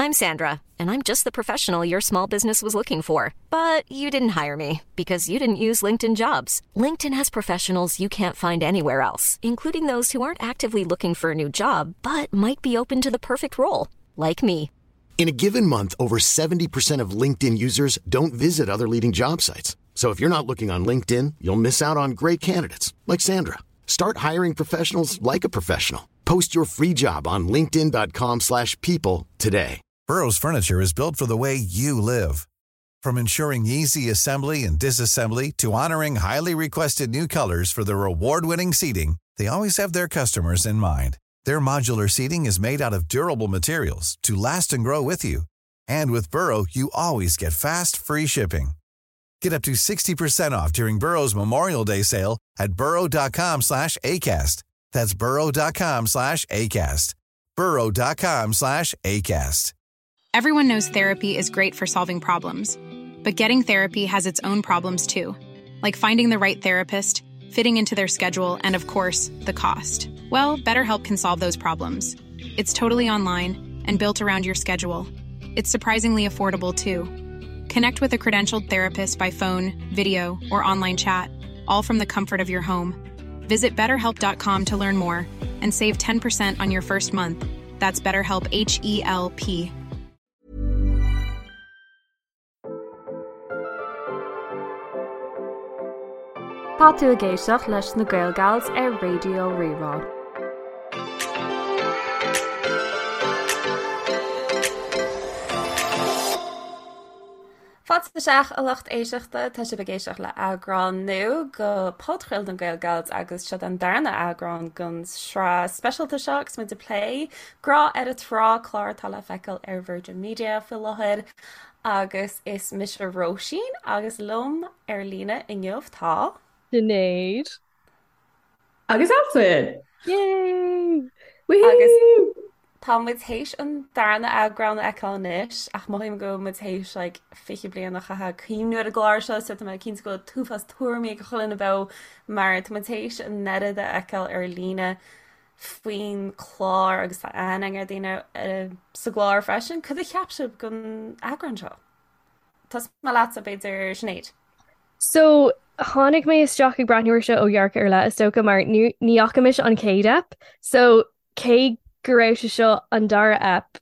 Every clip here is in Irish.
I'm Sandra, and I'm just the professional your small business was looking for. But you didn't hire me because you didn't use LinkedIn jobs. LinkedIn has professionals you can't find anywhere else, including those who aren't actively looking for a new job but might be open to the perfect role, like me. In a given month, over 70% of LinkedIn users don't visit other leading job sites. So if you're not looking on LinkedIn, you'll miss out on great candidates like Sandra. Start hiring professionals like a professional. Post your free job on linkedin.com/people slash people today. Burrow's furniture is built for the way you live. From ensuring easy assembly and disassembly to honoring highly requested new colors for their award-winning seating, they always have their customers in mind. Their modular seating is made out of durable materials to last and grow with you. And with Burrow, you always get fast, free shipping. Get up to 60% off during Burrow's Memorial Day sale at burrow.com slash ACAST. That's burrow.com slash ACAST. burrow.com slash ACAST. Everyone knows therapy is great for solving problems, but getting therapy has its own problems too, like finding the right therapist, fitting into their schedule, and of course, the cost. Well, BetterHelp can solve those problems. It's totally online and built around your schedule. It's surprisingly affordable too. Connect with a credentialed therapist by phone, video, or online chat, all from the comfort of your home. Visit betterhelp.com to learn more and save 10% on your first month. That's BetterHelp H E L P. Tá tú ag éisteacht leis na Gaelgals ar Raidió Rí-Rá. Fáilte isteach a lucht éisteachta, tá sibh ag éisteacht le eagrán nua de podchraoladh na Gaelgals agus seo an darna eagrán den sraith speisialta seo agus muid ag plé Grá ar an Trá, clár atá le feiceáil ar Virgin Media faoi láthair agus is mise Róisín agus liom ar líne inniu tá. Sinéad. Agus Altan! Yay! Agus tá muid théis an darna eagrán a fheiceáil anois ach mothaím go bhfuil muid théis like 20 bliain a chaitheamh ag cuimhniú ar an gclár seo so tá mé cinnte go bhfuil an t-uafás tuairimí ag chuile dhuine beo mar tá muid théis an oiread a fheiceáil ar líne faoin chlár agus tá aithne ar daoine sa gclár freisin. Cad a cheap sibh den eagrán seo? Tosóidh mé leatsa b'fhéidir Sinéad. So, tháinig mé isteach ag breathnú air seo ó dhearcadh ar leith, is dócha, mar ní fhaca mise an chéad ep. So, cé go raibh sé seo an dara ep,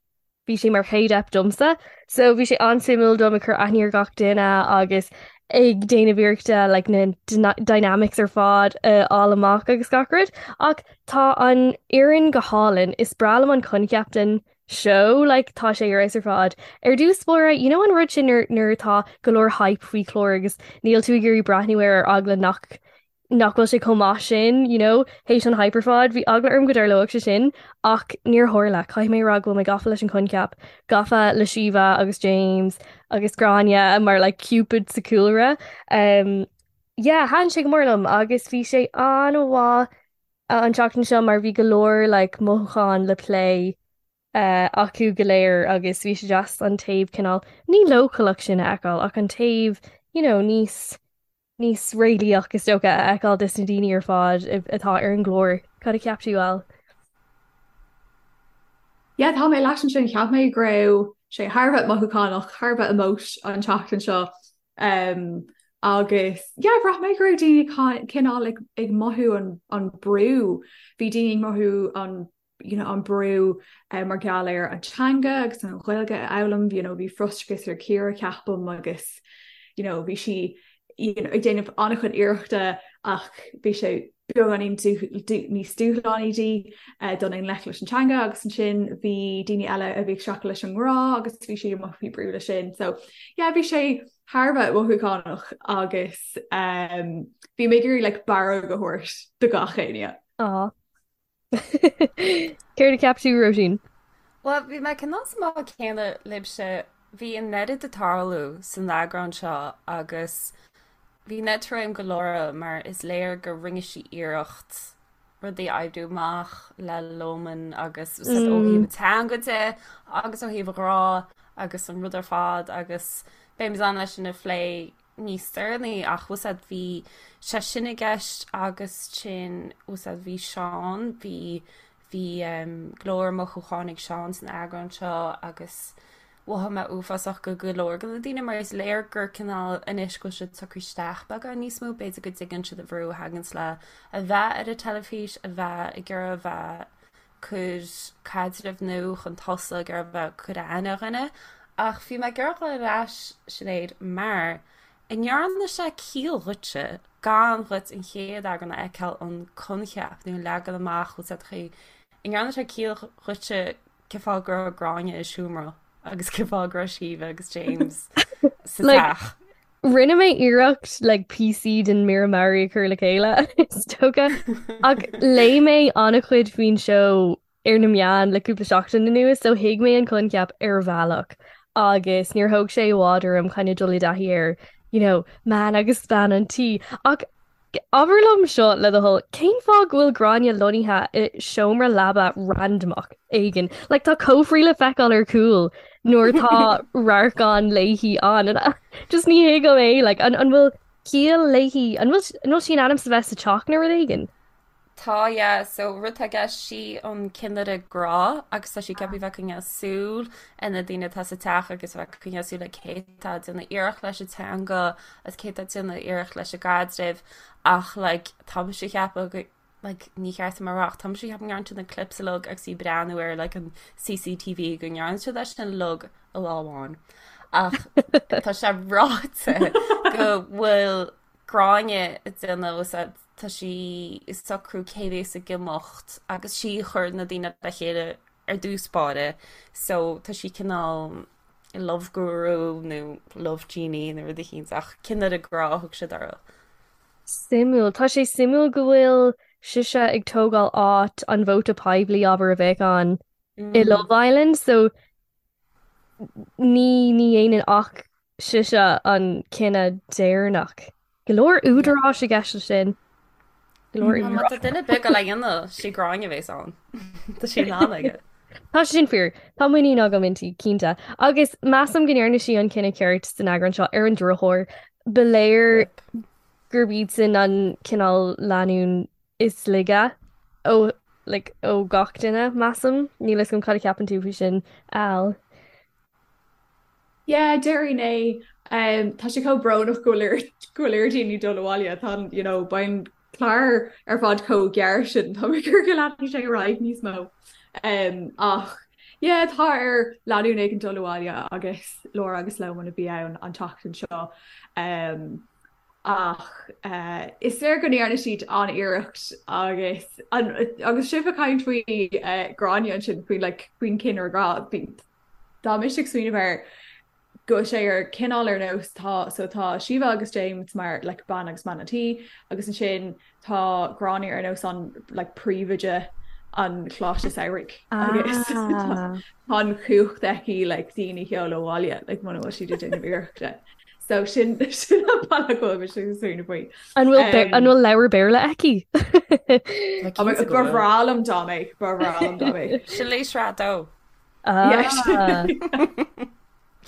bhí sé mar chéad ep domsa. So, bhí sé an-suimiúil dom ag cur aithne ar gach duine agus ag déanamh iarrachta like, na dynamics ar fad a fháil amach agus gach rud. Ach tá an fhoireann go hálainn. Is breá liom an coincheap den seó like tá sé ar fheabhas ar fad. Ar dtús báire, you know an rud sin nuair nuair atá go leor hype faoi chlár agus níl tú ag iarraidh breathnú air ar eagla nach nach bhfuil sé chomh maith sin, you know, théis an hype ar fad, bhí eagla orm go dtarlódh sé sin ach níor tharla. Caithfidh mé a rá go bhfuil mé gafa leis an choincheap, gafa le Síomha agus James agus Gráinne mar like Cupid sa cúlra. Um, yeah, thaitin sé go mór liom agus bhí sé an-mhaith an tseachtain seo mar bhí go leor like mothúcháin le plé acu go léir agus bhí sé deas an taobh cineál ní leochaileach sin a fheiceáil ach an taobh you know níos níos réalaíoch is dócha a fheiceáil des na daoine ar fad atá ar an gclár. Cad a cheap tú, Al? Yeah, tá mé leat ansin, cheap mé go raibh sé thar a bheith mothúchánach, thar a bheith emotional an tseachtain seo. Um, agus yeah, bhraith mé go raibh daoine cineál ag, ag mothú an, an brú. Bhí daoine ag mothú an you know, an brú uh, mar gheall ar an teanga agus an Ghaeilge a fhoghlaim, you know, bhí frustrachas ar Ciara ceapaim agus you know, bhí sí you know, ag déanamh an-chuid iarrachta ach bhí sé beagáinín níos dúshlánaí di uh, dul i ngleic leis an teanga agus ansin bhí daoine eile a bhí ag streachailt leis an ngrá agus bhí siad ag mothú faoi brú leis sin. So yeah, bhí sé thar a bheith mothúchánach agus um, bhí mé ag iarraidh like, barróg a thabhairt do gach éinne. Aw. Céard a cheap tú, Róisín? Bhuel, bhí mé cineál sa mbád céanna libhse. Bhí an oiread ag tarlú san eagrán seo agus bhí an oiread trua agam do Laura mar is léir go rinne sí iarracht rudaí a oibriú amach le Loman agus ó thaobh an teanga de agus ó thaobh an ghrá agus an rud ar fad agus beidh muid in ann é sin a phlé níos deireanaí ach bhfuil a fhios agat bhí sé sin i gceist agus sin bhfuil a fhios agat bhí Seán bhí. Bhí go leor mothúcháin ag Seán san eagrán seo agus mhothaigh mé uafásach go go leor de na daoine mar is léir gur cineál anois go bhfuil siad socraithe isteach beagán níos mó, b'fhéidir go dtuigeann siad an bhrú a thaganns le a bheith ar an teilifís, a bheith ag iarraidh a bheith cur caidreamh nua chun tosaigh, ag iarraidh a bheith cur aithne ar dhuine. Ach bhí mé ag iarraidh dul ar ais, Sinéad, mar an ndearna sé ciall dhuitse gan dhuit an chéad eagrán a fheiceáil an coincheap nó an leagan amach bhfuil a fhios agat an ndearna sé ciall dhuitse cén fáth go raibh Gráinne i seomra agus cén fáth go raibh Síomha agus James sa teach. Rinne mé iarracht like píosaí den mír meabhair a chur le chéile is dócha ach léigh mé an-chuid faoin seó ar na meáin le cúpla seachtain anuas so thuig mé an coincheap ar bhealach agus níor thóg sé i bhfad orm kind of dul i dtaithí ar you know, man agus bean an tí ach Abair liom seo le do thoil, cén fáth go bhfuil Gráinne lonnaithe i seomra leaba randamach éigin? Like tá cófraí le feiceáil ar cúl nuair atá radharc ann léi ann. Just ní thuigim é, like an an bhfuil ciall léi, an bhfuil an bhfuil sí in ainm is a bheith sa teach nó rud éigin? Tá, yeah, so rud atá i gceist, sí an cinnire grá agus tá sí ceaptha bheith ag coinneáil súil ar na daoine atá sa teach agus bheith ag coinneáil súil ar cé atá ag déanamh iarracht leis an teanga agus cé atá ag déanamh iarracht leis an gcaidreamh ach like tá mise ag ceapadh go like ní cheart dom a rá ach tá mise ag ceapadh go ndearna siad na clips uilig agus í ag breathnú ar like an CCTV go ndearna siad é sin uilig i lá amháin ach tá sé ráite go bhfuil Gráinne ag déanamh is tá sí ag socrú cé bhéas ag imeacht agus sí a chuir na daoine le chéile ar dtús báire so tá sí cineál love guru nó love genie nó rud eicínt ach cinnire grá a thug siad uirthi. Suimiúil. Tá sé suimiúil go bhfuil sise ag tógáil áit an vóta poiblí abair a bheadh ann i Love Island so ní ní dhéanann ach sise an cinneadh deireanach. Go leor údaráis i gceist leis sin. Go leor Má tá duine ar bith le dhéanamh sí Gráinne a bhéas ann. Tá sí in ann aige. Tá sé sin fíor. Tá muinín agam inti, cinnte. Agus measaim go ndearna sí an cinneadh ceart san eagrán seo ar an drochuair. Ba léir gurb iad sin an cineál lánúin is laige ó like, ó gach duine, measaim. Níl a fhios agam cad a cheapann tú faoi sin, Al. Yeah, déarfainn é. Um, tá sé chomh brónach go bhfuil ar go bhfuil ar daoine dul abhaile tá an, you know, beidh an clár ar fad chomh gearr sin tá mé ag iarraidh go leanfaidh sé ar aghaidh níos mó. Um, ach yeah, tá ar lánúin éigin dul abhaile agus Laura agus Loman a bhí ann an tseachtain seo. Um, ach uh, is léir go ndearna siad an-iarracht agus an, agus sibh ag caint faoi uh, Gráinne ansin faoin like, faoin cinnire grá bhí Tá mise ag smaoineamh air go bhfuil sé ar cineál ar nós tá so tá Síomha agus James mar like bean agus man an tí agus ansin tá Gráinne ar nós an like príomhoide an choláiste samhraidh agus ah. tá an chumhacht aici like daoine a sheoladh abhaile like muna bhfuil siad ag déanamh iarrachta. So sin sin an bealach go bhfuil mise ag smaoineamh faoi. An bhfuil an bhfuil leabhar Béarla aici? Ba bhreá liom dá mbeadh ba bhreá liom dá mbeadh. Sin léi sraith dó. Ah.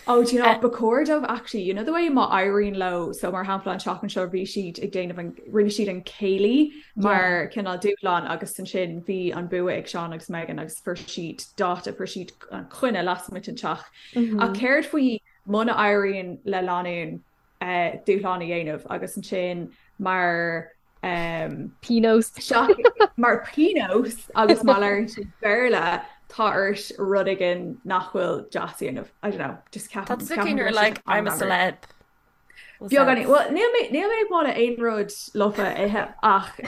Oh, do you know, ba chóir dóibh actually, you know the way má éiríonn leo, so mar shampla an tseachtain seo bhí siad ag déanamh an, rinne siad an céilí mar cineál dúshlán agus ansin bhí an bua ag Seán agus Megan agus fuair siad dáta, fuair siad an coinne lasmuigh den teach. Ach céard faoi muna éiríonn le lánúin dúshlán a dhéanamh agus ansin mar pionós mar pionós agus má labhraíonn siad Béarla tá ort rud éigin nach bhfuil deas a dhéanamh. I don't know, just ceapaim. Tá tú cineál like I'm a celeb. Beagáinín. Well, níl mé níl mé ag moladh aon rud lofa a ithe ach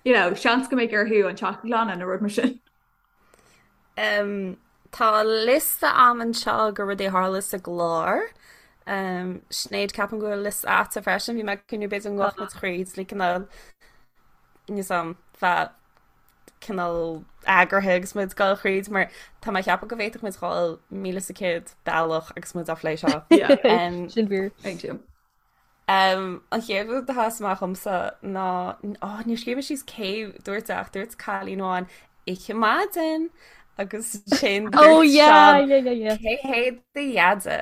you know, seans go mbeidh orthu an teach a ghlanadh nó rud mar sin. Um, tá liosta a'm anseo de rudaí a tharla sa gclár. Um, Sinéad ceapaim go bhfuil liosta a'dsa freisin, bhí mé ag cuimhneamh b'fhéidir go ngabhfadh muid thríd le cineál níos am bheith cineál eagraithe agus muid ag dul thríd mar tá mé ag ceapadh go bhféadfadh muid dhul 1,100 bealach agus muid á phlé seo. Yeah. Um, Sin fíor. Thank you. An chéad rud a sheas amach dhomsa ná, ó, níor scríobh mé síos cé dúirt é ach dúirt cailín amháin, Oíche maidin! Agus sin Oh dúirt yeah, Seán, yeah, yeah, yeah. Cé hé do dheaide?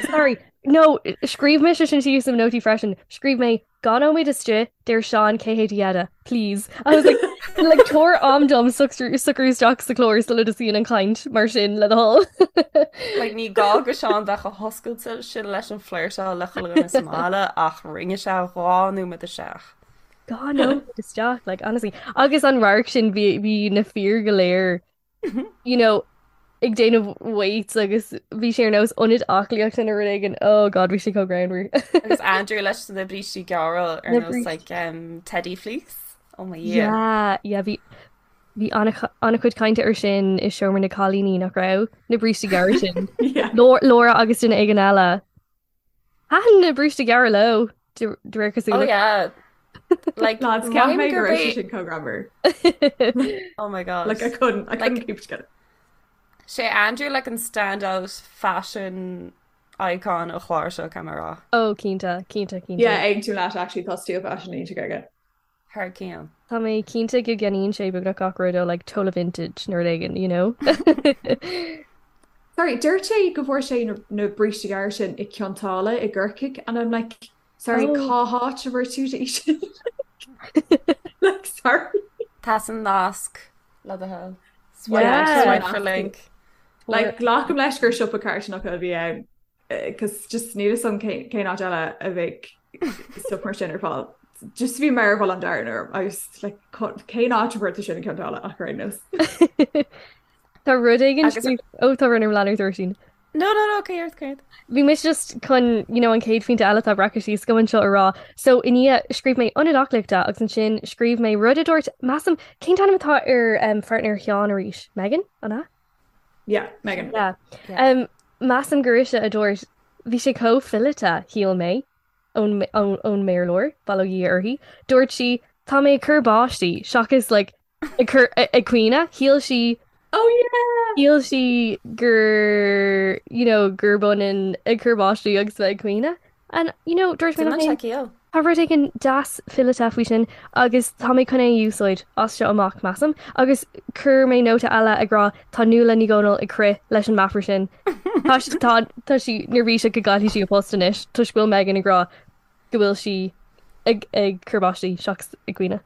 Sorry, no, scríobh mise sin síos i mo nótaí freisin. Scríobh mé. Dhá nóiméad istigh, deir Seán cé hé do dheaide, please. I was like, like tabhair am dom socrú isteach sa chlár sula dtosaíonn an chaint mar sin le do thoil. Like ní gá go Seán bheith chomh hoscailte sin leis an flirteáil le chuile dhuine sa mbaile ach rinne sé dhá nóiméad isteach. Dhá nóiméad isteach, like honestly. Agus an radharc sin bhí bhí na fir go léir you know, ag déanamh weights agus bhí sé ar nós ionad aclaíochta nó rud éigin. Oh God, bhí sé chomh greannmhar. Agus Andrew leis na brístí gearra ar Na nós brístí. like um, Teddy Fleece. Oh my Dhia. Yeah, yeah, bhí bhí an-chuid cainte ar sin i seomra na cailíní nach raibh na brístí gearra sin. Yeah. Laura agus duine éigin eile. Thaitin na brístí gearra leo, de réir Oh cosúlachta. yeah. Like, Lads, ceap mothaím mé go gurb raibh sé é sin chomh greannmhar. Oh my God. Like I couldn't, I couldn't Like keep it together. sé Andrew like an standout fashion icon an chláir seo caithfidh mé a rá. Oh, cinnte, cinnte, cinnte. Yeah, aontaím leat actually tá stíl fashion iontach aige. Thar cionn. Tá mé cinnte go gceannaíonn sé beagnach gach rud ó like Tola Vintage nó rud éigin, you know? Sorry, dúirt sé go bhfuair sé na, na brístí gearra sin i Cionn tSáile i gCorcaigh and I'm like, sorry, Oh. cá háit a bhfuair tú í sin? Like, sorry. Tá san nasc le do thoil. Swipe, Yeah. swipe for link. Like, glacaim leis gur siopa carthanach a bhí ann. Cos just níl 'fhios a'm cén áit eile a bheadh stuff mar sin ar fáil. Just bhí mearbhall an domhain orm agus like cén áit a bhfuair tú sin i gCionn tSáile ach ar aon nós. Tá rud éigin Agus ó tá rud lean ort Róisín. No no no céard céard. Bhí mise just chun you know, an chéad phointe eile atá breactha síos agam anseo a rá. So i ndiaidh scríobh mé ionad aclaíochta agus ansin scríobh mé rud a dúirt measaim cén t-ainm atá ar um, pháirtnéir Sheáin arís? Megan? An ea? Yeah, Megan. Yeah. Yeah. Um, measaim gur ise a dúirt, bhí sé chomh fileata, shíl mé, ón, ón, ón mBéarlóir, bail ó Dhia uirthi. Dúirt sí, tá mé ag cur báistí, seachas like, ag cur ag caoineadh. Shíl sí, Oh yeah! shíl sí gur, you know, gurb ionann ag cur báistí agus bheith ag caoineadh. And, you know, dúirt mé liom Déanann sé féin, ciall. Tá rud éigin deas fileata faoi sin agus tá mé chun é a úsáid as seo amach, measaim. Agus chuir mé nóta eile ag rá tá Nuala Ní Dhomhnaill ag crith leis an meafar sin. Tá tá tá sí neirbhíseach go gcaillfidh sí a post anois toisc go bhfuil Megan ag rá go bhfuil sí ag ag cur báistí seachas ag caoineadh.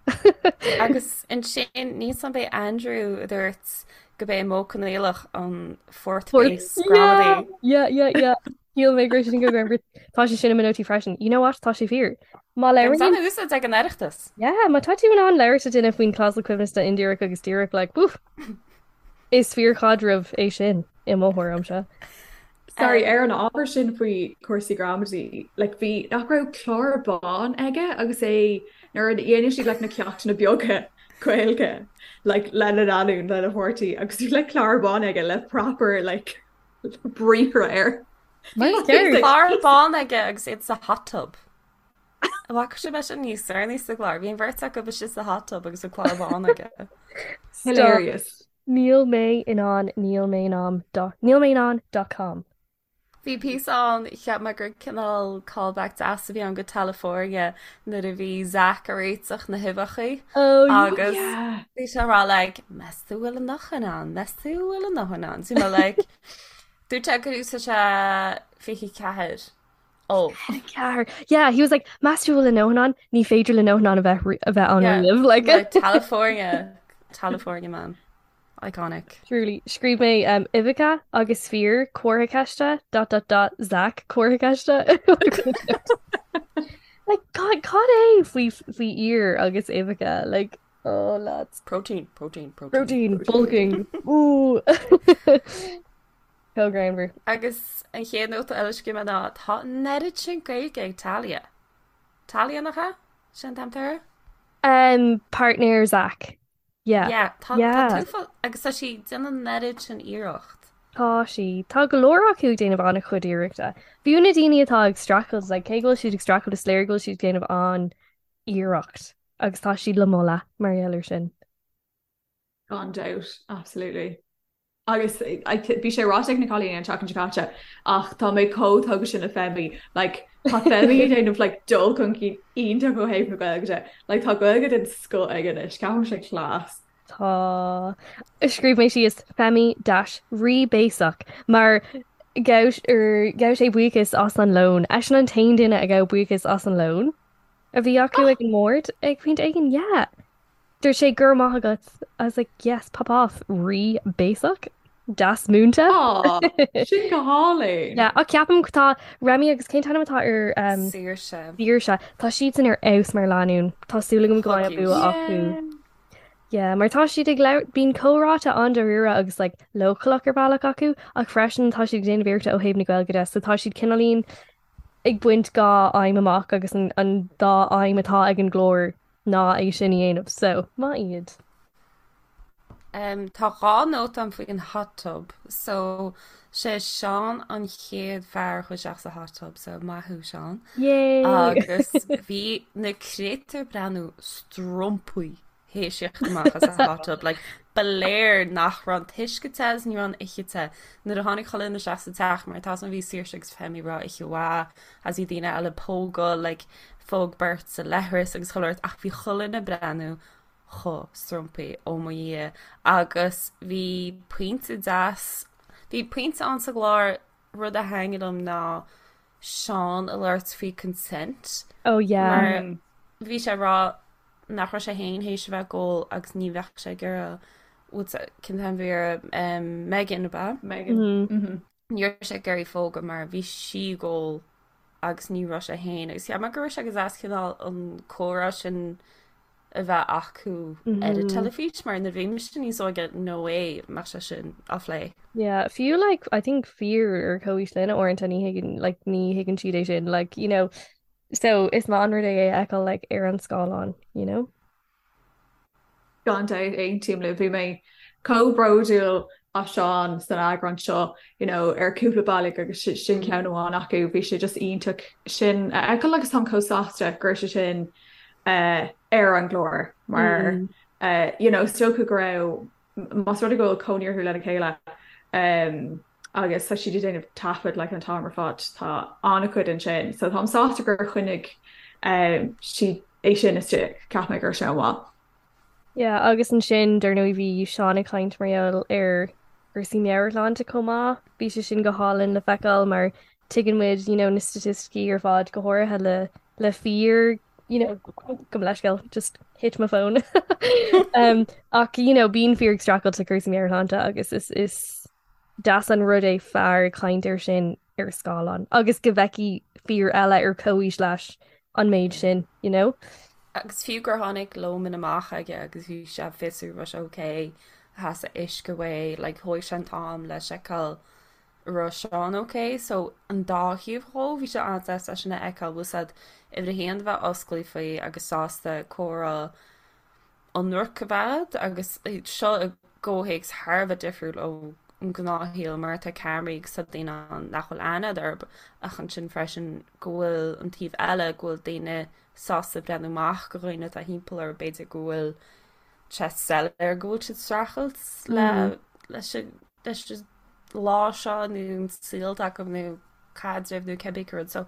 Agus ansin níl 'fhios a'm ab é Andrew a dúirt go b'é Modh Coinníollach an fourth Fourth base yeah gramadaí. yeah yeah yeah. Shíl mé go raibh sé sin go greannmhar. Tá sé sin i mo nótaí freisin. You know what? Tá sé fíor. Má Agus labhraíonn an-úsáid ag an Oireachtas. Yeah, má tá tú in ann labhairt le duine faoin clásal coibhneasta indíreach agus díreach, like, woof. Is fíorchaidreamh é sin i mo thuairimse. Sorry, Um, ar an ábhar sin faoi chúrsaí gramadaí, like, bhí nach raibh clár bán aige agus é nuair a dhéanadh siad like, na ceachtanna beaga Gaeilge like, lena lánúin, lena pháirtí agus bhí like, clár bán aige le proper like, briathra air. Mar Bhí ceart. clár bán aige agus iad sa hot tub. An bhfaca sibh é sin níos deireanaí sa gclár? Bhí an bheirt acu istigh sa hot tub agus an clár bán aige. Stop. Hilarious. Níl mé in ann, níl mé in ann, dot, níl mé in ann dot com. Bhí píosa ann, cheap mé gur cineál callback deas a bhí ann go Tallifornia nuair a bhí Zach ag réiteach na huibheacha Oh yeah. agus Yeah. bhí sé ag rá like, meas tú bhfuil a ndóthain ann, meas tú bhfuil a ndóthain ann. So bhí mé like, dúirt sé gur úsáid sé 24 ubh. 24. Yeah, he was like, meas tú bhfuil a ndóthain ann? Ní féidir le ndóthain ann a bheith ri- a bheith ann Yeah, riamh. Like, like Tallifornia, Tallifornia man. Iconic. Truly. Scríobh mé um, uibheacha agus fir comhartha ceiste dot dot dot Zach comhartha ceiste. Like, cad cad é faoi faoi fhir agus uibheacha? Like, oh lads. Protein, protein, protein. Protein, bulking. Ooh. Chomh greannmhar. Agus an chéad nóta eile a scríobh mé ná tá an oiread sin Gaeilge ag Talia. Talia nach ea? Sin an t-ainm atá uirthi? Um, partner Zach. Yeah. Yeah, tá tá Yeah. tú agus tá sí ag déanamh an oiread sin iarracht. Tá sí. Tá go leor acu ag déanamh an-chuid iarrachta. Fiú na daoine atá ag streachailt, like, cé go bhfuil siad ag streachailt is léir go bhfuil siad ag déanamh an-iarracht agus tá siad le moladh mar gheall air sin. Gan dabht, absolutely. Agus bhí sé ráite ag na cailíní an tseachtain seo caite ach tá mé chomh tógtha sin le Femi. Like, tá Femi ag déanamh like, dul chun cinn iontach ó thaobh na Gaeilge de. Like, tá Gaeilge den scoth aige anois, ceapaim sé class. Tá. Scríobh mé síos Femi dash rí béasach mar ghabh er, ghabh sé buíochas as an lón. Eisean an t-aon duine a ghabh buíochas as an lón. A bhí acu ag an mbord ag pointe éigin, yeah. Dúirt sé go raibh maith agat. I was like, yes, pop off, rí béasach, deas múinte. Aw, sin go hálainn. Yeah, ach ceapaim tá Remy agus cén t-ainm atá ar um, Saoirse. Saoirse. Tá siadsan ar fheabhas mar lánúin. Tá súil agam go mbeidh an bua acu. Yeah, mar tá siad ag labhairt, bíonn comhráite an-dáiríre agus like, leochaileach ar bhealach acu, ach freisin tá siad ag déanamh iarrachta ó thaobh na Gaeilge de, so tá siad cineáilín ag baint dhá aidhm amach agus an, an dá aidhm atá ag an gclár ná é sin a dhéanamh, so maith iad. Um, tá dhá nóta agam faoin hot tub, so sé Seán an chéad fear a chuaigh isteach sa hot tub, so maith thú Seán. Yay! Agus bhí na créatúir ag breathnú strompaí théis theacht amach as an hot tub, like, ba léir nach raibh an t-uisce te agus ní raibh an oiche te. Nuair a tháinig chuile dhuine isteach sa teach, mar tá san bhí Saoirse agus Femi ag rá oíche mhaith, agus bhí daoine eile ag pógadh, like, phóg beirt sa leithreas agus chuile shórt, ach bhí chuile dhuine ag breathnú chomh strompaí, ó mo Dhia. Agus bhí pointe deas, bhí pointe ann sa gclár, rud a thaitnigh liom ná Seán ag labhairt faoi consent. Oh yeah. Mar bhí sé ag rá nach raibh sé féin théis a bheith ag ól agus ní bheadh sé ag iarraidh cén t-ainm a bhí uirthi Megan ab ea? Megan. Mm-hmm. Ní raibh sé ag iarraidh phógadh mar bhí sí ag ól agus ní raibh sé féin agus cheap mé go raibh sé go deas cineál an comhrá sin a bheith acu ar an teilifís mar nuair a bhí mise níos óige no way mbeadh sé sin á phlé. Yeah, fiú like I think fir ar comhaois linn uaireanta ní thuigeann like ní thuigeann siad é sin like you know so is maith an rud é é a fheiceáil like ar an scáileán you know. Gan dabht aontaím libh bhí mé chomh bródúil as Seán san eagrán seo you know ar cúpla bealach agus sin ceann amháin acu bhí sé just iontach sin a fheiceáil agus táim chomh sásta go raibh sé sin uh, ar an gclár mar mm. uh, you know, is dócha go raibh más rud é go bhfuil cónaí orthu lena chéile um, agus tá siad ag déanamh taifead like, an t-am ar fad tá an-chuid ansin so táim sásta gur choinnigh um, siad é sin istigh cheap mé go raibh sé an-mhaith. Yeah, agus ansin dar ndóigh bhí Seán ag caint mar gheall ar cúrsaí meabhairshláinte chomh maith. Bhí sé sin go hálainn le feiceáil mar tuigeann muid you know, na staitisticí ar fad go háirithe le le fir you know, gabh mo leithscéal, just hit my phone. um, ach you know, bíonn fir ag streachailt le cúrsaí meabhairshláinte agus is, is deas an rud é fear ag caint air sin ar scáileán agus go bhfeicfidh fir eile ar comhaois leis an méid sin, you know? Agus fiú gur tháinig lómán amach aige agus bhí sé ag fiosrú raibh sé ok, theastaigh uisce uaidh, like thóg sé an t-am le seiceáil raibh Seán ok, so an dá thaobh dhó, bhí sé an-deas é sin a fheiceáil, bhfuil 's a'd, uimhir a haon a bheith oscailte faoi agus sásta comhrá ionraic a bheith a'd agus seo i gcomhthéacs thar a bheith difriúil ón ngnáthshaol mar tá ceamaraí agus tá daoine ann nach bhfuil aithne a'd orthu ach ansin freisin go bhfuil an taobh eile go bhfuil daoine sásta breathnú amach go dhaoine atá thimpeall orthu b'fhéidir go bhfuil sé soiléir go bhfuil siad streachailt le leis an leis an lá seo nó an saol atá acu nó caidreamh nó cibé cén rud. So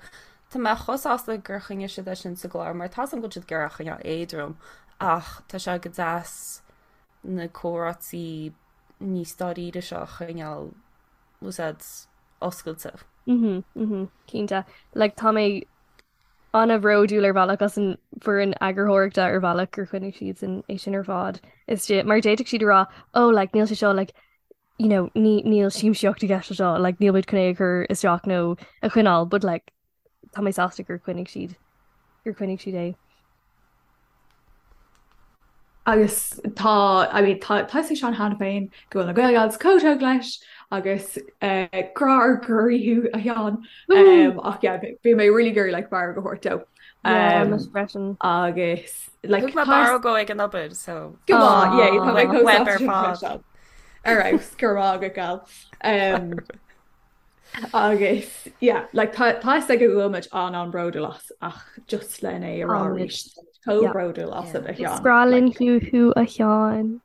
tá mé chomh sásta gur choinnigh siad é sin sa gclár mar tá 's agam go bhfuil siad ag iarraidh a choinneáil éadrom ach tá sé go deas na comhráití níos dáiríre seo a choinneáil bhfuil 's a'd oscailte. Mhm, mhm, cinnte. Like tá mé an-bhródúil ar bhealach as an bhfoireann eagarthóireachta ar bhealach gur choinnigh siad sin é sin ar fad. Istigh mar d'fhéadfadh siad a rá oh like níl sé seo like you know ní níl siamsaíocht i gceist le seo like níl muid chun é a chur isteach nó a choinneáil but like tá mé sásta gur choinnigh siad gur choinnigh siad é. Agus tá, I mean, tá tá 'fhios ag Seán cheana féin go bhfuil na Gael Gals chomh tógtha leis agus eh, grá ár gcroí thú a Sheáin. Um, ach yeah, bhí mé really ag iarraidh like barróg a thabhairt dó. Yeah, Um, mise freisin. agus like Thug mé tá barróg dó ag an obair so Go maith, yeah, tá mé chomh Web sásta ar sin fad. freisin. Ar fheabhas, go raibh maith agat, Gal. Um, Agus yeah, like tá tá 'fhios aige go bhfuil muid an-an-bhródúil as ach just len é a rá Táimid. arís chomh Yeah. bródúil asat a Is Sheáin. breá linn Like, thú thú a Sheáin.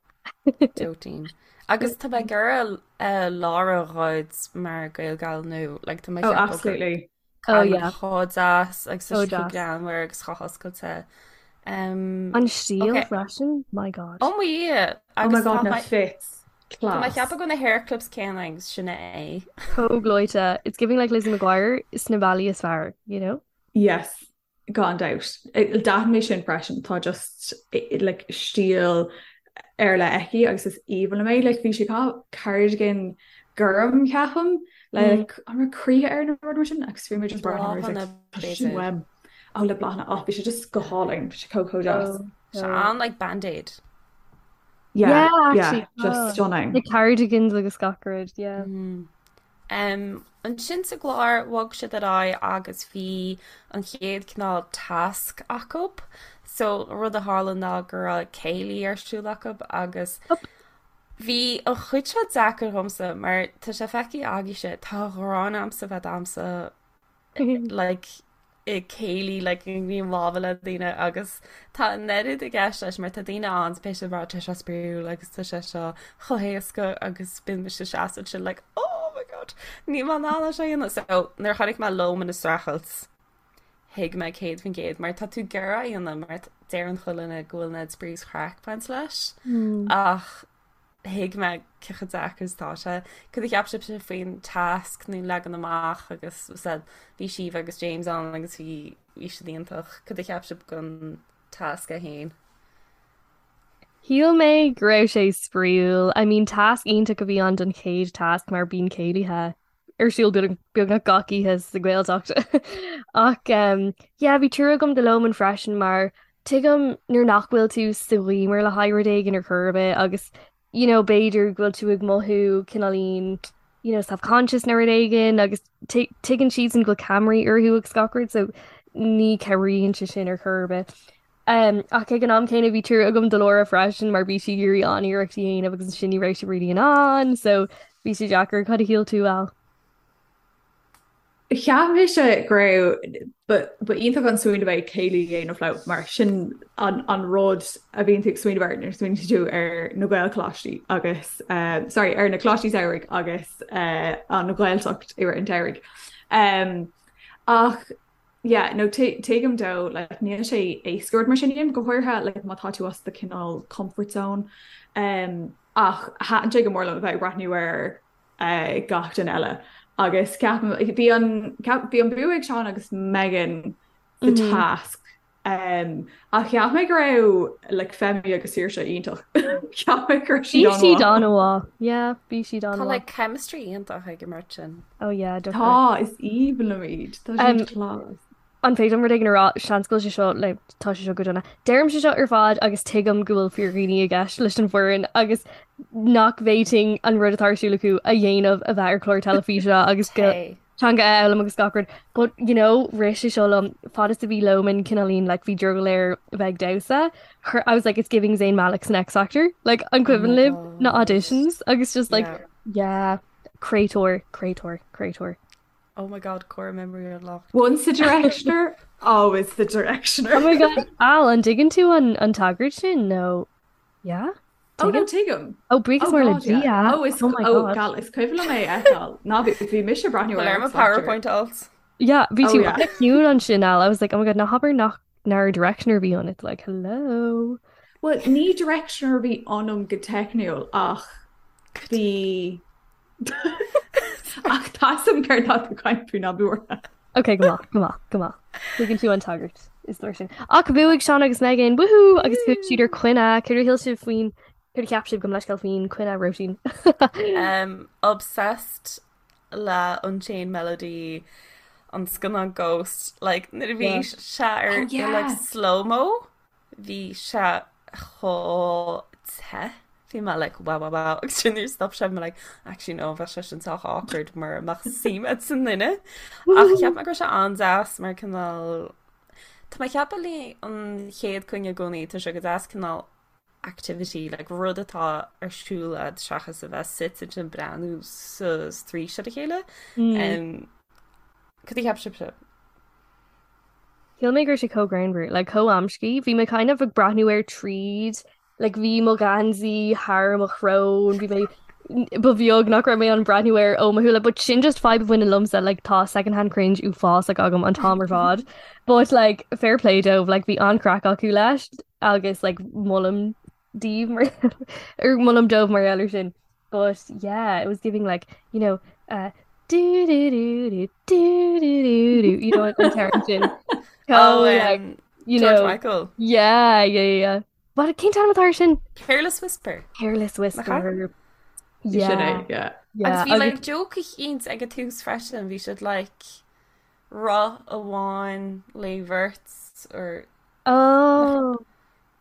Dóitín. Agus tá mé ag iarraidh eh, Lára a ghoid mar Gaelgal nó like tá mé oh ag ceapadh gur absolutely. Oh cailín yeah, chomh deas agus tá so sí chomh deas. greannmhar agus chomh hoscailte. Um, An stíl okay. freisin? My God. Oh my Dhia! Oh my Agus God tá na mé fits. tá mé ag Class. ceapadh go na hair clips céanna agus sin é. Chomh gleoite. It's giving like Lizzie McGuire sna bealaí is fearr, you know? Yes. Gan dabht. D'aithin mé sin freisin, tá just like stíl ar leith aici agus is aoibhinn liom é. Like bhí sí ag caitheamh cardigan gorm ceapaim le mm. like, an raibh croíthe air nó rud mar sin agus bhí mé just bláthanna sin uaim. Ó le bláthanna ach bhí sé just go hálainn, bhí sé chomh chomh deas. Sé an like band-aid. Yeah, yeah, actually, yeah, just oh. stunning. The cardigans agus gach rud, yeah. Mm. Ansin sa gclár, bhog siad ar aghaidh agus bhí an chéad cineál tasc acu. So, rud a tharla ná go raibh céilí ar siúl acu agus bhí an chuid seo deacair dhomsa mar tá sé feicthe agaibhse, tá gráin a'msa bheith ag damhsa like i céilí like i ngníomh láimhe le daoine agus tá an oiread i gceist leis mar tá daoine ann beidh siad ag rá tá sé spraíúil agus tá sé seo chomh héasca agus bíonn mise ag seasamh ansin like oh my god níl mé in ann é seo a dhéanamh. So nuair a chonaic mé Loman ag streachailt thuig mé 100% mar tá tú ag iarraidh é a dhéanamh mar deireann chuile dhuine go bhfuil an oiread spraoi is craic ag baint leis ach thuig mé cé chomh deacair is atá sé. Cad a cheap sibhse faoin tasc nó leagan amach agus said bhí Síomha agus James ann agus bhí bhí siad iontach. Cad a cheap sibh den tasc é féin? Shíl mé go raibh sé spraíúil. I mean tasc iontach a bhí ann don chéad tasc mar bíonn céilithe ar siúl beagnach gach oíche sa Ghaeltacht. Ach um, yeah, bhí trua agam do Loman freisin mar tuigim nuair nach bhfuil tú sa ghiúmar le haghaidh rud éigin ar chor ar bith agus you know, b'fhéidir go bhfuil tú ag mothú cineáilín you know, self-conscious nó rud éigin agus tuigeann siadsan go bhfuil ceamaraí orthu agus gach rud so ní chabhraíonn sé sin ar chor ar bith. Um, ach ag an am céanna bhí trua agam do Laura freisin mar bhí sí ag iarraidh an-iarracht a dhéanamh agus ansin ní raibh sí really in ann, so bhí sé deacair. Cad a shíl tú, Al? Cheap mise go raibh ba iontach an smaoineamh é céilí a dhéanamh leo mar sin an an rud a bhíonn tú ag smaoineamh air nuair a smaoiníonn tú ar na Gaelcholáistí agus uh, sorry, ar na coláistí samhraidh agus uh, an Ghaeltacht i rith an tsamhraidh. Um, ach Yeah, no, tuigim dó, like, níl sé éasca rud mar sin a dhéanamh, go háirithe, like, má tá tú as do cineál comfort zone. Um, ach thaitin sé go mór liom a bheith ag breathnú ar uh, gach duine eile. Agus ceapaim, bhí an, bhí an bua ag Seán agus Megan sa mm -hmm. tasc. Um, ach cheap mé go raibh like, Femi agus Saoirse iontach. Cheap mé go raibh siad an-mhaith. Bhí siad an-mhaith. Yeah, bhí siad an-mhaith. Tá like chemistry iontach ag an mbeirt sin. Oh yeah, definitely. Tá, is aoibhinn liom iad. Tá siad um, class. An féidir liom rud éigin a rá, seans go bhfuil sé seo le tá sé seo go dona. Deirim sé seo ar fad agus tuigim go bhfuil fíordhaoine i gceist leis an bhfoireann agus nach bhféadfainn an rud atá ar siúl acu a dhéanamh a bheith ar chlár teilifíse agus go teanga a fhoghlaim agus gach rud. But you know, rith sé seo liom fad is a bhí Loman cineáilín like bhí drogall air a bheith ag damhsa. Her, I was like it's giving Zayn Malik san X Factor. Like an Oh my cuimhin libh na God. auditions agus just like Yeah. yeah, Créatúr, créatúr, créatúr. Oh my God, core memory unlocked. Once a directioner, always the Oh directioner. my God, Al, an dtuigeann tú an, an tagairt sin nó yeah? Oh no, Tuigeann? tuigim. Oh, buíochas Oh mór le God, yeah. Dia. Oh, is Oh my oh God. gal, is cuimhin liom é a fheiceáil. Ná bhí bhí mise ag breathnú Bhfuil ar ar mo X Factor. PowerPoint alt. Yeah, bhí Oh tú yeah. an-chiúin ansin, Al. I was like, oh my God, ná habair nach nár directioner a bhí ionat. Like, hello. Well, ní directioner a bhí ionam go teicniúil ach bhí Ach tá a fhios agam céard atá tú ag caint faoi ná bí buartha. Ok, go maith, go maith, go maith. Tuigeann tú an tagairt is leor sin. Ach bhuaigh Seán agus Megan, woohoo! Agus bhuaigh siad ar coinne. Céard a shíl sibh faoin, céard a cheap sibh gabh mo leithscéal faoin coinne Róisín? Um, obsessed le Unchained Melody an scannán Ghost like nuair a bhí Yeah. sé ar Oh i like yeah. slow-mo bhí sé chomh te bhí mé like wow wow wow agus sin nuair stop sé bhí mé like actually no bheadh sé sin sách awkward mura mbeadh suim a'd sa nduine ach cheap mé go raibh sé an-deas mar cineál Tá mé ag ceapadh le an chéad coinne i gcónaí tá sé go deas cineál activity, like rud atá ar siúl a'd seachas a bheith suite ansin breathnú sa straois ar a chéile. Mm. Um, cad a cheap sibhse? Shíl mé go raibh sé chomh greannmhar, like chomh amscaí. Bhí mé kind of ag breathnú air tríd, like bhí mo gheansaí thar mo shrón, bhí mé ba bheag nach raibh mé ag breathnú air ó mo shúile, but sin just fadhb a bhaineann liomsa, like tá second hand cringe uafásach agam an t-am ar fad. But like fair play dóibh, like bhí an-chraic acu leis. agus like molaim daoibh mar or molaim dóibh mar gheall air sin. But yeah, it was giving like, you know, uh, Do do do do do do do do you know an t-amhrán sin. Oh, Chomh like you George know Michael. yeah yeah yeah yeah. What cén t-ainm atá air sin? Careless Whisper. Careless Nach ea? Whisper. Sin Yeah é, yeah. Agus yeah bhí agus like joke eicínt ag an tús freisin, bhí siad like roth amháin le bheirt or nach oh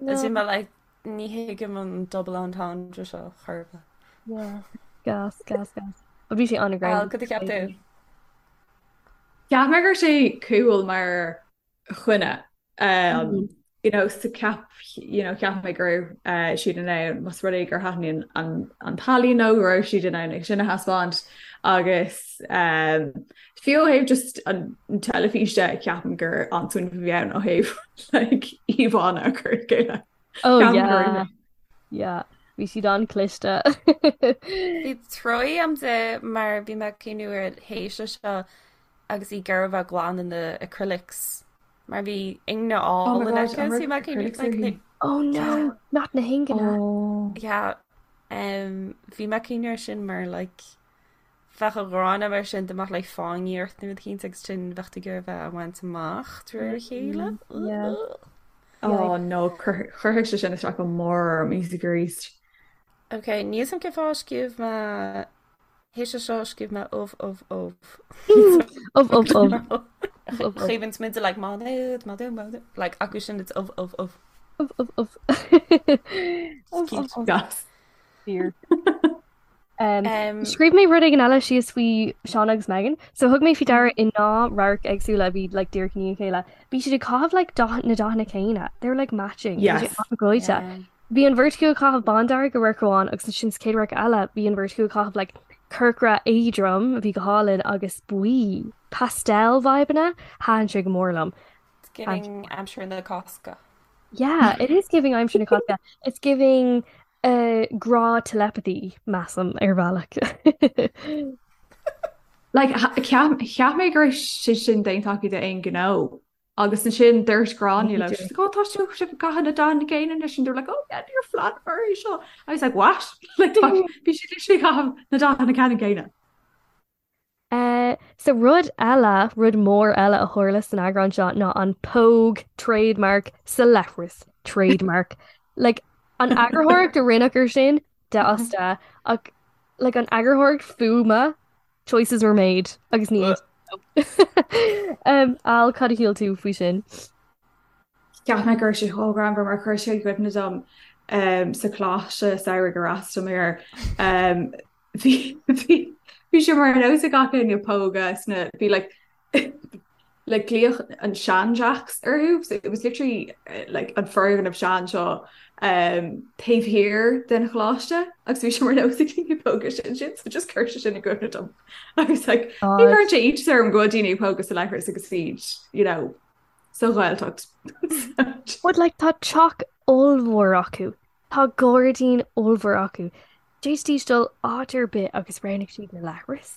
As no in mé like ní thuigim an double entendre seo chor ar bith. yeah gas gas gas. But bhí sé Al, an-ghreannmhar. cad a cheap tú? Cheap mé go raibh sé cool mar choinne. Um, you know, so ceap, you know, cheap mé go raibh uh, siad in ann más rud é gur thaitníonn an, an t-ealaín leo go raibh siad in ann é sin a thaispeáint agus um, fiú ó thaobh just an teilifís de ceapaim gur an-smaoineamh a bhí ann ó thaobh like, íomhánna a chur le chéile. Oh Ceapaim go raibh yeah yeah bhí siad an-chliste. Bhí truaí agam di mar bhí mé ag cuimhniú ar théis seo agus í ag iarraidh a bheith glan in the acrylics mar bhí ingne Oh my álainn God, aici an so bhí raibh mé ag cuimhniú acrylics like uirthi? Oh yeah no, not na hingne. Oh. yeah um, bhí mé ag cuimhniú ar sin mar like bheadh an ghráin mar sin dá mbeadh like fáinní ort nó rud eicínt agus sin bheadh tú ag iarraidh a bheith á bhaint amach de réir a chéile. Mm, yeah. Yeah. Oh no, chuirfeadh sé sin isteach go mór orm arís arís. Ok, níl a fhios agam cén fáth a scríobh mé théis seo scríobh mé ubh ubh ubh. Ubh ubh ubh. Ubh ubh ubh. Chuimhin muid like má nuad má má like acu sin it's ubh ubh ubh. Ubh ubh ubh. It's Ubh ubh cute. ubh. Gas. Fíor. Um, scríobh mé rud éigin eile síos faoi Seán agus Megan. So thug mé faoi deara i ndá radharc éagsúla a bhí like díreach i ndiaidh a chéile. Bhí siad ag caitheamh like dath na dathanna céanna. They were like matching. Bhí sé Yes. an-ghleoite. Yeah. Bhí an bheirt acu ag caitheamh bándearg i radharc amháin agus ansin sa chéad radharc eile bhí an bheirt acu ag caitheamh like corcra éadrom a bhí go hálainn agus buí. Pastel vibeanna. Thaitin sé go mór liom. It's giving aimsir na Cásca. Yeah, it is giving aimsir na Cásca. It's giving uh, grá telepathy, measaim, ar bhealach. Like, cheap cheap mé go raibh sé sin déanta acu d'aon ghnó. Agus ansin dúirt Gráinne leo, she's like, oh, tá sibh ag caitheamh na dathanna céanna anois, and they were like, oh yeah, níor phleanálamar é seo. I was like, what? Like, tá, bhí siad literally ag caitheamh na dathanna ceannann céanna. Uh, so rud eile, rud mór eile a tharla san eagrán seo ná an póg trademark sa leithreas trademark. Like, an eagarthóireacht a rinneadh ar sin, de as de, ach like, an eagarthóireacht fuaime, choices were made agus ní aontaím leo. Um, Al, cad a shíl tú faoi sin? Cheap mé go raibh sé chomh greannmhar mar chuir sé i gcuimhne dom um, sa choláiste samhraidh ar fhreastail mé air. Um, bhí bhí bhí sé mar nós ag gach éinne pógadh sna bhí like like glaodh an sean Jacks orthu so it was literally eh, like an foirgneamh sean seo um, taobh thiar den choláiste agus bhí sé mar nós ag daoine pógadh sin sin so just chuir sé sin i gcuimhne dom agus like ní God. chuireann sé iontas orm go bhfuil daoine ag pógadh sa leithreas agus iad you know sa Ghaeltacht But like tá teach ollmhór acu. Tá gairdín ollmhór acu. D'fhéadfaidís dul áit ar bith agus roghnaigh siad na leithris.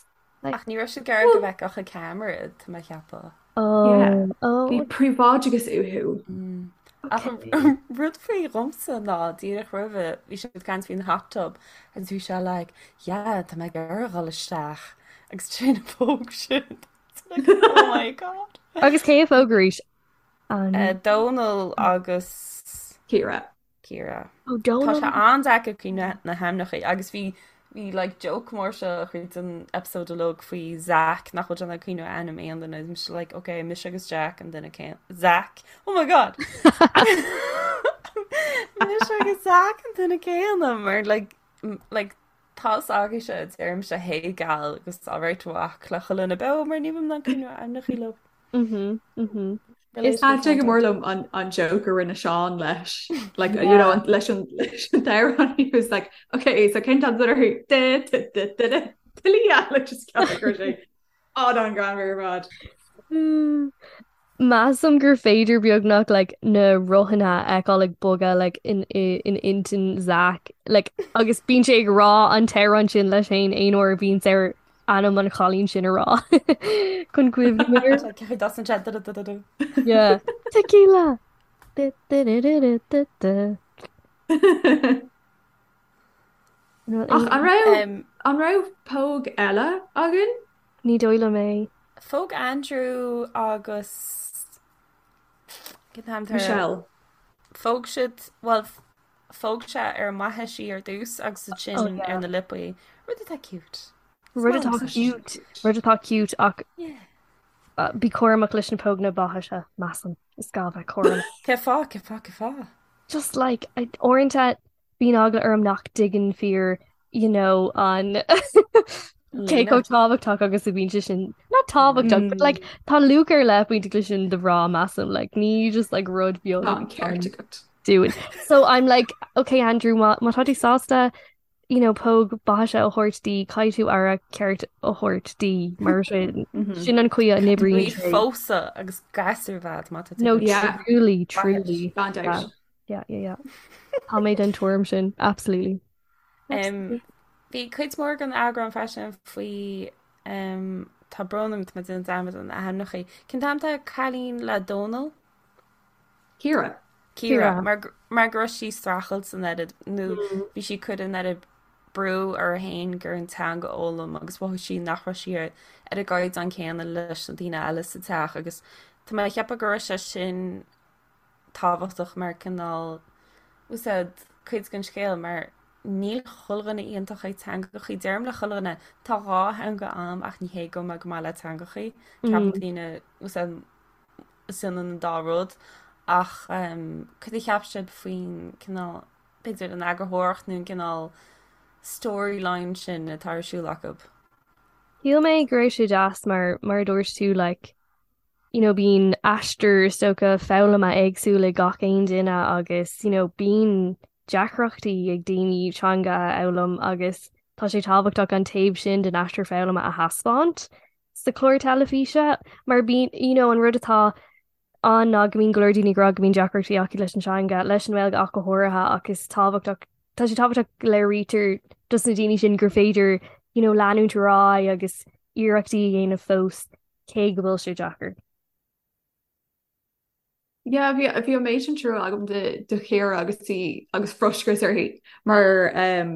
Like, Ach ní raibh siad ag iarraidh go bhfeicfeadh an ceamara, tá mé ag ceapadh. Yeah. oh, oh, Bhí príobháideachas uathu. Ach okay. an rud faoi dhomsa ná díreach roimhe bhí siad ag caint faoin hot tub agus bhí sé like, yeah, tá mé ag iarraidh dhul isteach agus sin a phóg siad. It's like, oh my god. Agus cé a phóg arís? An Dónal agus Ciara. Ciara. Oh, Tá Dónal. sé an-deacair cuimhneamh na hainmneacha agus bhí bhí like joke mór seo tríd an episode uilig faoi Zach nach bhfuil sé in ann cuimhneamh ar ainm aon duine mise like ok mise agus Jack an duine céanna Zach oh my god mise agus Zach an duine céanna mar like like tá a fhios agaibhse deirimse hey gal agus alright a mhac le chuile dhuine beo mar ní bhím in ann cuimhneamh ar ainmneacha leo. Mhm, mhm. Is Thaitin sé go mór liom an an joke a rinne Seán leis like you know leis an leis an t-amhrán he was like okay so cén t-am orthu de de de de de Talia like just ceap go raibh sé an-ghreannmhar ar fad. Mm. Measaim gur féidir beagnach like na rothanna a fheiceáil ag bogadh like in in intinn Zach like agus bíonn sé ag rá an t-amhrán sin leis féin aon uair a bhíonn air ainm an chailín sin a rá chun cuimhneamh air. Ceapaim das an chat da da da da. Yeah. Tequila. Du, du, du, du, du, du, du. Ach an raibh Um, an raibh póg eile againn? Ní dóigh liom é. Phóg Andrew agus Michelle. Phóg siad well phóg sé ar an mbaithis í ar dtús agus ansin oh, ar na liopaí. Rud atá cute. Rud atá cute, rud atá cute ach bí cúramach leis na póganna baithise measaim is gá bheith cúramach. Cén fáth, cén fáth, cén fáth? Just like uaireanta bíonn eagla orm nach dtuigeann fir you know an cé chomh tábhachtach agus a bhíonn sé sin not tábhachtach but like tá luach ar leith bainteach leis sin do mhná measaim like ní just like rud beag Tá an ceart agat. dúinn. So I'm like okay Andrew má má tá tú sásta you know póg baithise a thabhairt di caithfidh tú aire ceart a thabhairt di mar sin sin an chaoi a n-oibríonn Bhí sé. phósadh agus gasúr bhead má tá tú No Yeah. truly truly. Gan dabht. Yeah, yeah, yeah. Tá mé den tuairim sin, absolutely. Um, bhí cuid mhór den eagrán freisin faoi um, tá brón orm tá mé ag déanamh dearmad ar na hainmneacha. Cén t-ainm atá ar an cailín le Dónal? Ciara. Ciara, mar, mar go raibh sí ag streachailt san oiread nó mm. bhí sí ag cur an oiread brú uirthi féin gur an teanga a fhoghlaim agus mhothaigh sí nach raibh sí ar ar an gcaighdeán céanna leis na daoine eile sa teach agus tá mé ag ceapadh go raibh sé sin tábhachtach mar cineál úsáid cuid den scéal mar níl chuile dhuine iontach ag teangachaí. Deirim le chuile dhuine, tá dhá theanga a'm ach ní hé go bhfuil mé go maith le teangachaí. Ceapann daoine úsáid is ionann an dá rud ach cad a cheap sibh faoin cineál b'fhéidir an eagarthóireacht nó an cineál storyline sin atá ar siúl acu? Shíl mé go raibh sé deas mar mar a dúirt tú like you know, bíonn aistear is dócha foghlama éagsúil ag gach aon duine agus you know, bíonn deacrachtaí ag daoine teanga a fhoghlaim agus tá sé tábhachtach an taobh sin den aistear foghlama a thaispeáint sa chlár teilifíse mar bíonn you know, an rud atá ann ná go mbíonn go leor daoine ag rá go mbíonn deacrachtaí acu leis an teanga, leis an nGaeilge ach go háirithe ach is tábhachtach tá sé tábhachtach go léirítear dos na daoine sin gur féidir you know, leanúint ar aghaidh agus iarrachtaí a dhéanamh fós cé go bhfuil sé deacair. Yeah, bhí bhí an méid sin trua agam do do Chiara agus í agus frustrachas uirthi mar um,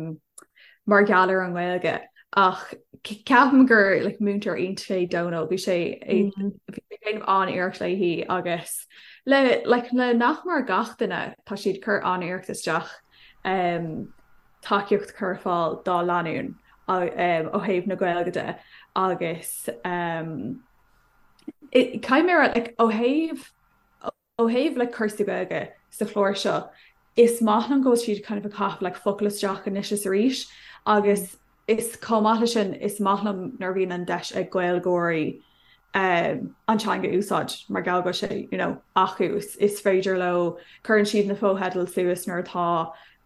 mar gheall ar an nGaeilge ach ceapaim gur like, múinteoir iontach é Dónal bhí sé mm. bhí sé ag déanamh an-iarracht léi agus le like, le nach mór gach duine tá siad ag cur an-iarracht isteach um, tacaíocht a chur ar fáil dá lánúin ó thaobh na Gaeilge de agus caithfidh mé a rá like, ó thaobh ó thaobh like, cúrsaí Gaeilge sa chlár seo is maith liom go bhfuil siad kind of ag caitheamh like, focal isteach anois is arís agus is chomh maith leis sin is maith liom nuair a bhíonn an deis ag Gaeilgeoirí um, an teanga a úsáid mar gheall go bhfuil sé you know, acu is, is féidir leo cuireann siad na fotheidil suas nuair atá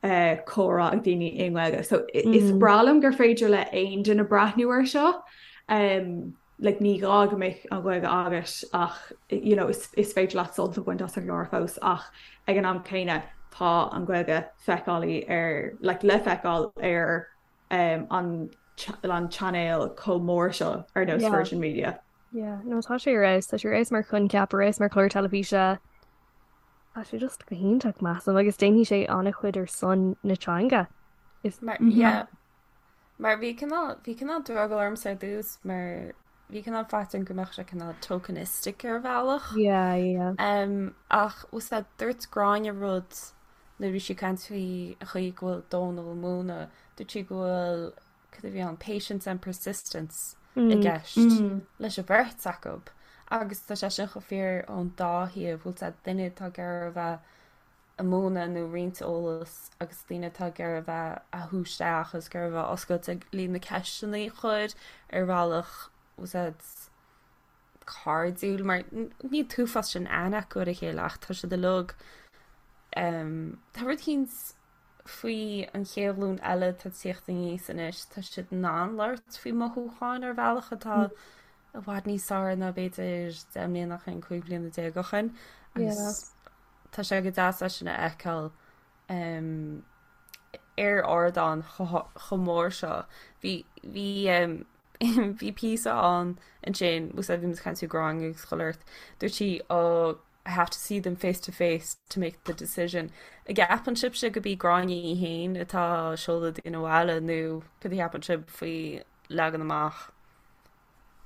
uh, comhrá ag daoine i nGaeilge. So mm. is breá liom gur féidir le aon duine breathnú ar seo. Um, like, ní gá go mbeadh an Ghaeilge agat ach you know, is, is féidir leat sult a bhaint as an gclár fós ach ag an am céanna tá an Ghaeilge feiceálaí ar like, le feiceáil ar um, an an chainéal chomh mór seo ar nós Virgin Media. Yeah, no tá sé ar fheabhas, tá sé ar fheabhas mar choincheap, ar fheabhas mar chlár teilifíse. Tá sé just go hiontach measaim agus déanfaidh sé an-chuid ar son na teanga. Is mar mm -hmm. yeah. Mar bhí cineál bhí cineál drogall ormsa ar dtús mar bhí cineál faitíos orm go mbeadh sé cineál tokenistic ar bhealach. Yeah, yeah. Um, ach úsáid dúirt Gráinne rud nuair a bhí sí ag caint faoi an chaoi go bhfuil Dónal ag múineadh, dúirt sí go bhfuil, cad a bhí ann, patience and persistence i gceist leis an bheirt acu. Agus tá sé sin chomh fíor ón dá thaobh, bhfuil sé duine atá ag iarraidh a bheith ag múineadh nó roinnt eolas agus daoine atá ag iarraidh a bheith á shú isteach agus ag iarraidh a bheith oscailte le na ceisteanna a chur ar bhealach, úsáid cairdiúil mar níl an t-uafás sin aithne acu ar a chéile ach tá siad uilig tá rud éicint faoi an chéad ghlúin eile atá ag tíocht aníos anois tá siad in ann labhairt faoi mothúcháin ar bhealach atá i bhfad níos fearr ná b'fhéidir 10 mbliana ó shin, 15 bliana ó shin agus tá sé go deas é sin a fheiceáil ar ardán chomh mór seo. Bhí bhí Bhí píosa ann ansin, úsáid bhí muid ag caint faoi Gráinne agus chuile shórt, dúirt sí oh I have to see them face to face to make the decision. An gceapann sibhse gurb í Gráinne í féin atá ag seoladh daoine abhaile nó cad a cheapann sibh faoi leagan amach?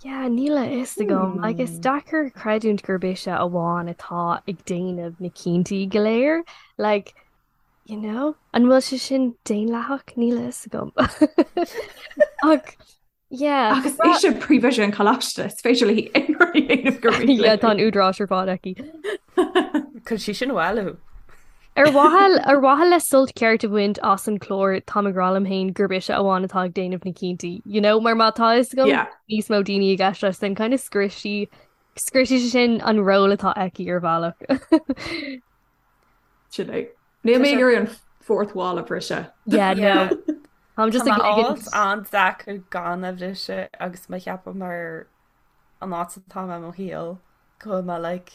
Yeah, níl a fhios agam. Like, is deacair creidiúint gurb ise amháin atá ag déanamh na cinntí go léir. Like, you know, an bhfuil sé sin daonlathach? Níl a fhios agam. Ach, yeah. Agus ise príomhoide an choláiste, is féidir léi aon rud a dhéanamh gur mian Yeah, tá an údarás ar fad aici. Cuir sí sin abhaile. Ar mhaithe ar mhaithe le sult ceart a bhaint as an chlár táim ag rá liom féin gurb ise amháin atá ag déanamh na cinntí, you know, mar má tá fhios agam Yeah. níos mó daoine i gceist leis then kind of scriosfaidh scriosfaidh sé sin an ról atá aici ar bhealach. Sin é. Níl mé ag iarraidh an fourth wall a bhriseadh. Yeah, no. Táim just Tá ag mé ligint. an-deacair gan a bhriseadh agus mé cheapadh mar an áit atá mé i mo shaol go bhfuil mé like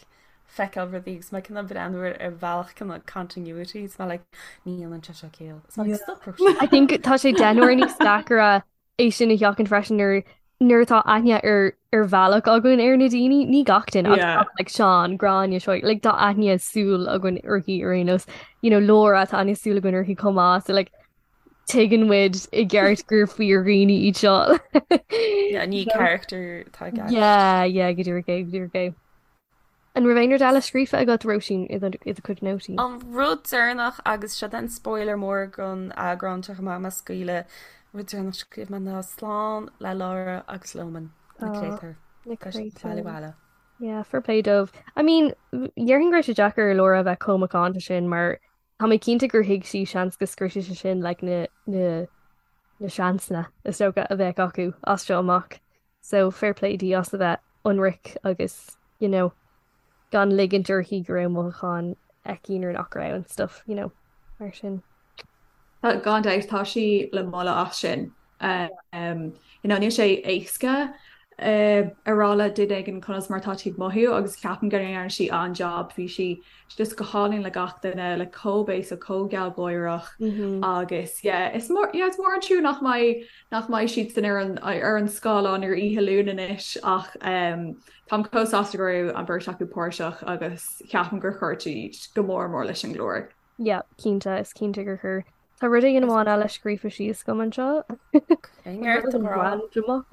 feiceáil rudaí agus mé cineál breathnú ar ar bhealach cineál continuity is mé like ní dhéanann sé seo ciall. Is mé like stop Róisín. I think tá sé deich n-uaire níos deacaire é sin a sheachaint freisin nuair nuair atá aithne ar ar bhealach againn ar na daoine, ní gach duine ach Yeah. like Seán, Gráinne, seo like tá aithne súl againn uirthi ar aon nós. You know, Laura tá aithne súl againn uirthi chomh maith, so like tuigeann muid i gceart gur fíordhaoine iad seo. Yeah, ní character atá i gceist. Yeah, yeah, go díreach é, go díreach é. An raibh aon rud eile scríofa agat, Róisín, i do i do chuid nótaí? An rud deireanach, agus seo an spoiler mór don eagrán seo chomh maith, má scaoileadh, rud deireanach scríobh mé ná slán le Laura agus Loman, na Oh, créatúir. na Tá siad créatúir. baile bhaile. Yeah, fair play dóibh. I mean, déarfainn go raibh sé deacair ar Laura a bheith chomh macánta sin mar Tá mé cinnte gur thuig sí seans go scriosfadh sé sin like na na na seansanna is dócha a bheadh acu as seo amach. So fair play di as a bheith ionraic agus you know gan ligint uirthi go raibh mothúcháin aici nuair nach raibh and stuff, you know, mar sin. Tá gan dabht tá sí le moladh as sin. Um, you know, níl sé éasca uh, a rá le duine éigin conas mar tá tú ag mothú agus ceapaim go ndearna sí an-jab bhí sí just go hálainn le gach duine le chomh béasach chomh gealgháireach agus yeah, is mór yeah, is mór an trua nach mbeidh nach mbeidh siadsan ar an ar an scáileán ar oíche Luain anois ach um, táim chomh sásta go raibh an bheirt acu páirteach agus ceapaim gur chuir siad go mór mór leis an gclár. Yeah, cinnte, is cinnte gur chuir. Tá rud éigin amháin eile scríofa síos agam anseo. Randamach.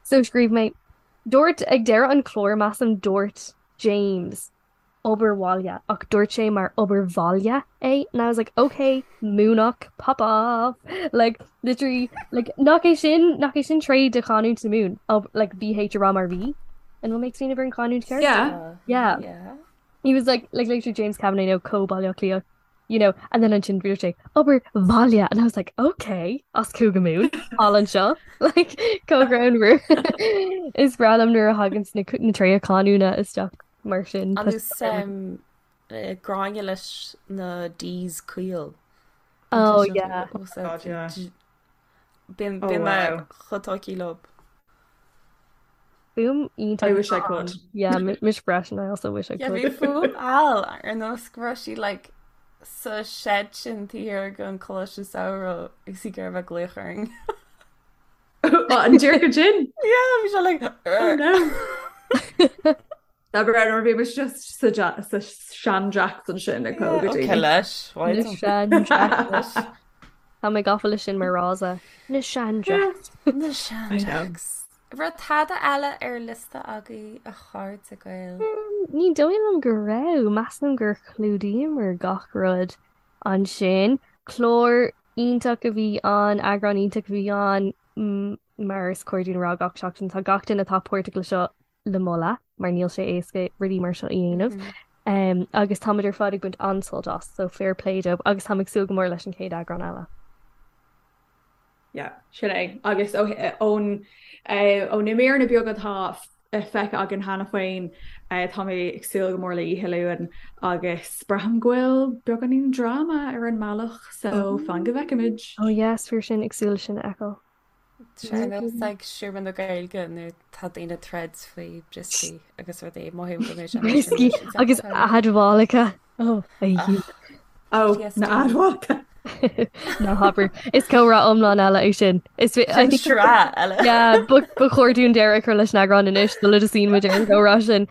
So scríobh mé, dúirt ag deireadh an chláir measaim dúirt James obair bhaile ach dúirt sé mar obair bhaile é and I was like okay Múnach pop off like literally like nach é sin nach é sin tréith de chanúint na Mumhan ob like BH a rá mar V an bhfuil mé ag smaoineamh ar an chanúint ceart? Yeah. Yeah. Yeah. He was like like literally James Kavanagh no co Baile Átha Cliath you know and then ansin dúirt sé obair bhaile and I was like okay as Cúige Mumhan thall anseo like chomh greannmhar is breá liom nuair a thagann na na tréithe canúna isteach mar sin An nós um, eh, Gráinne leis na D's caol. Oh yeah. God, yeah. Bíonn Oh bíonn mé wow. chomh tógtha leo. Fuaim I iontach wish I could. Yeah, mise freisin I also wish I Yeah, could. bhí fuaim Al ar nós go raibh sí like sa shed sin taobh thiar den choláiste samhraidh agus í ag iarraidh a bheith ag glaoch orainn. Oh, an dearcadh sin? Yeah, bhí sé like Oh no. Tá breá nuair bhí muid just sa ja- sa sean-jacks ansin ag Yeah, pógadh okay daoine. leis, Na why don't sean-jacks. leis. Tá mé gafa leis sin mar fhrása. Na sean-jacks. Na I know. sean-jacks. Raibh tada eile ar liosta agaibh a chairde Gael? Ní dóigh liom go raibh. Measaim gur chlúdaíomar gach rud ansin. Clár iontach a bhí ann, eagrán iontach a bhí ann, mar is cóir dúinn a rá gach seachtain. Tá gach duine atá páirteach le seo le moladh mar níl sé éasca rudaí mar seo a dhéanamh. Agus táimid ar fad ag baint an-sult as, so fair play dóibh agus táim ag súil go mór leis an chéad eagrán eile. Yeah, sin é. Agus ón ó na míreanna beaga atá feicthe againn cheana féin, tá mé ag súil go mór le Oíche Luain agus braithim go bhfuil beagáinín dráma ar an mbealach, so fan go bhfeicfimid. Oh yes, fíor sin, ag súil leis sin a fheiceáil. Sé nós ag Seomra na Gaeilge nuair tá daoine ag troid faoi brioscaí agus rudaí mothaím go mbeidh sé mar sin Brioscaí leis an agus tseachtain. admhálacha. Oh, a Ach, Oh, na PTSD. admhálacha. Ná habair. Is comhrá iomlán eile é sin. Is I Sin think sraith eile. yeah, ba ba chóir dúinn deireadh a chur leis an eagrán anois sula dtosaíonn muid ar an gcomhrá sin.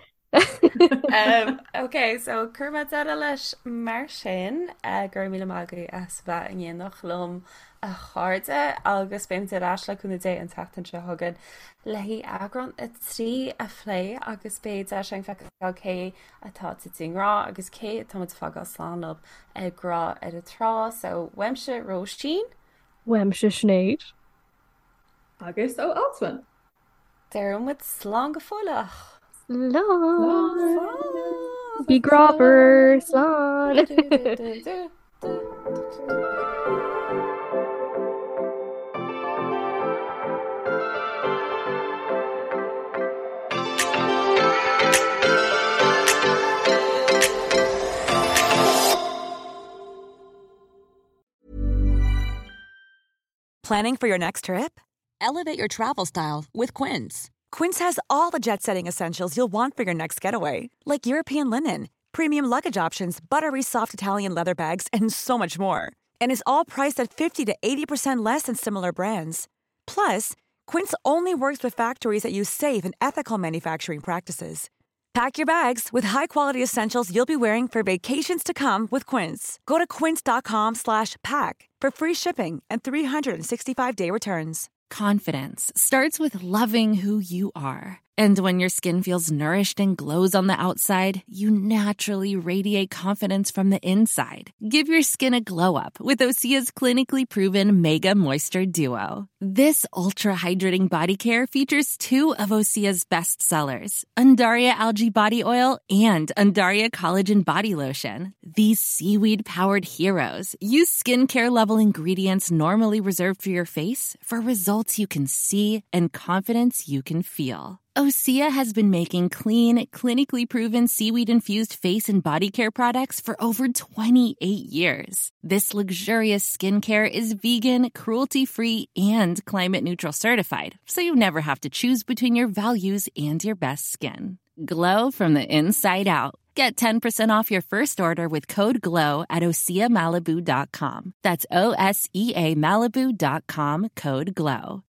Um, ok, so cuirfidh mé deireadh leis mar sin uh, go raibh míle maith agaibh as bheith in éineacht liom. a chairde agus beimid ar ais le cúnamh Dé an tseachtain seo chugainn le haghaidh eagrán 3 a phlé agus beidh deis againn feiceáil cé atá tite i ngrá agus cé atá muid ag fágáil slán leo ag Grá ar an Trá. So uaimse Róisín. Uaimse Sinéad. Agus ó Alswyn. Deir muid slán go fóilleach. Slán. Bí grámhar. Slán. Planning for your next trip? Elevate your travel style with Quince. Quince has all the jet setting essentials you'll want for your next getaway, like European linen, premium luggage options, buttery soft Italian leather bags, and so much more. And is all priced at 50 to 80% less than similar brands. Plus, Quince only works with factories that use safe and ethical manufacturing practices. Pack your bags with high-quality essentials you'll be wearing for vacations to come with Quince. Go to quince.com slash pack for free shipping and 365-day returns. Confidence starts with loving who you are. And when your skin feels nourished and glows on the outside, you naturally radiate confidence from the inside. Give your skin a glow up with Osea's clinically proven Mega Moisture Duo. This ultra hydrating body care features two of Osea's best sellers, Undaria Algae Body Oil and Undaria Collagen Body Lotion. These seaweed powered heroes use skincare level ingredients normally reserved for your face for results you can see and confidence you can feel. Osea has been making clean, clinically proven seaweed infused face and body care products for over 28 years. This luxurious skincare is vegan, cruelty free, and climate neutral certified, so you never have to choose between your values and your best skin. Glow from the inside out. Get 10% off your first order with code GLOW at OseaMalibu.com. That's O S E A Malibu.com code GLOW.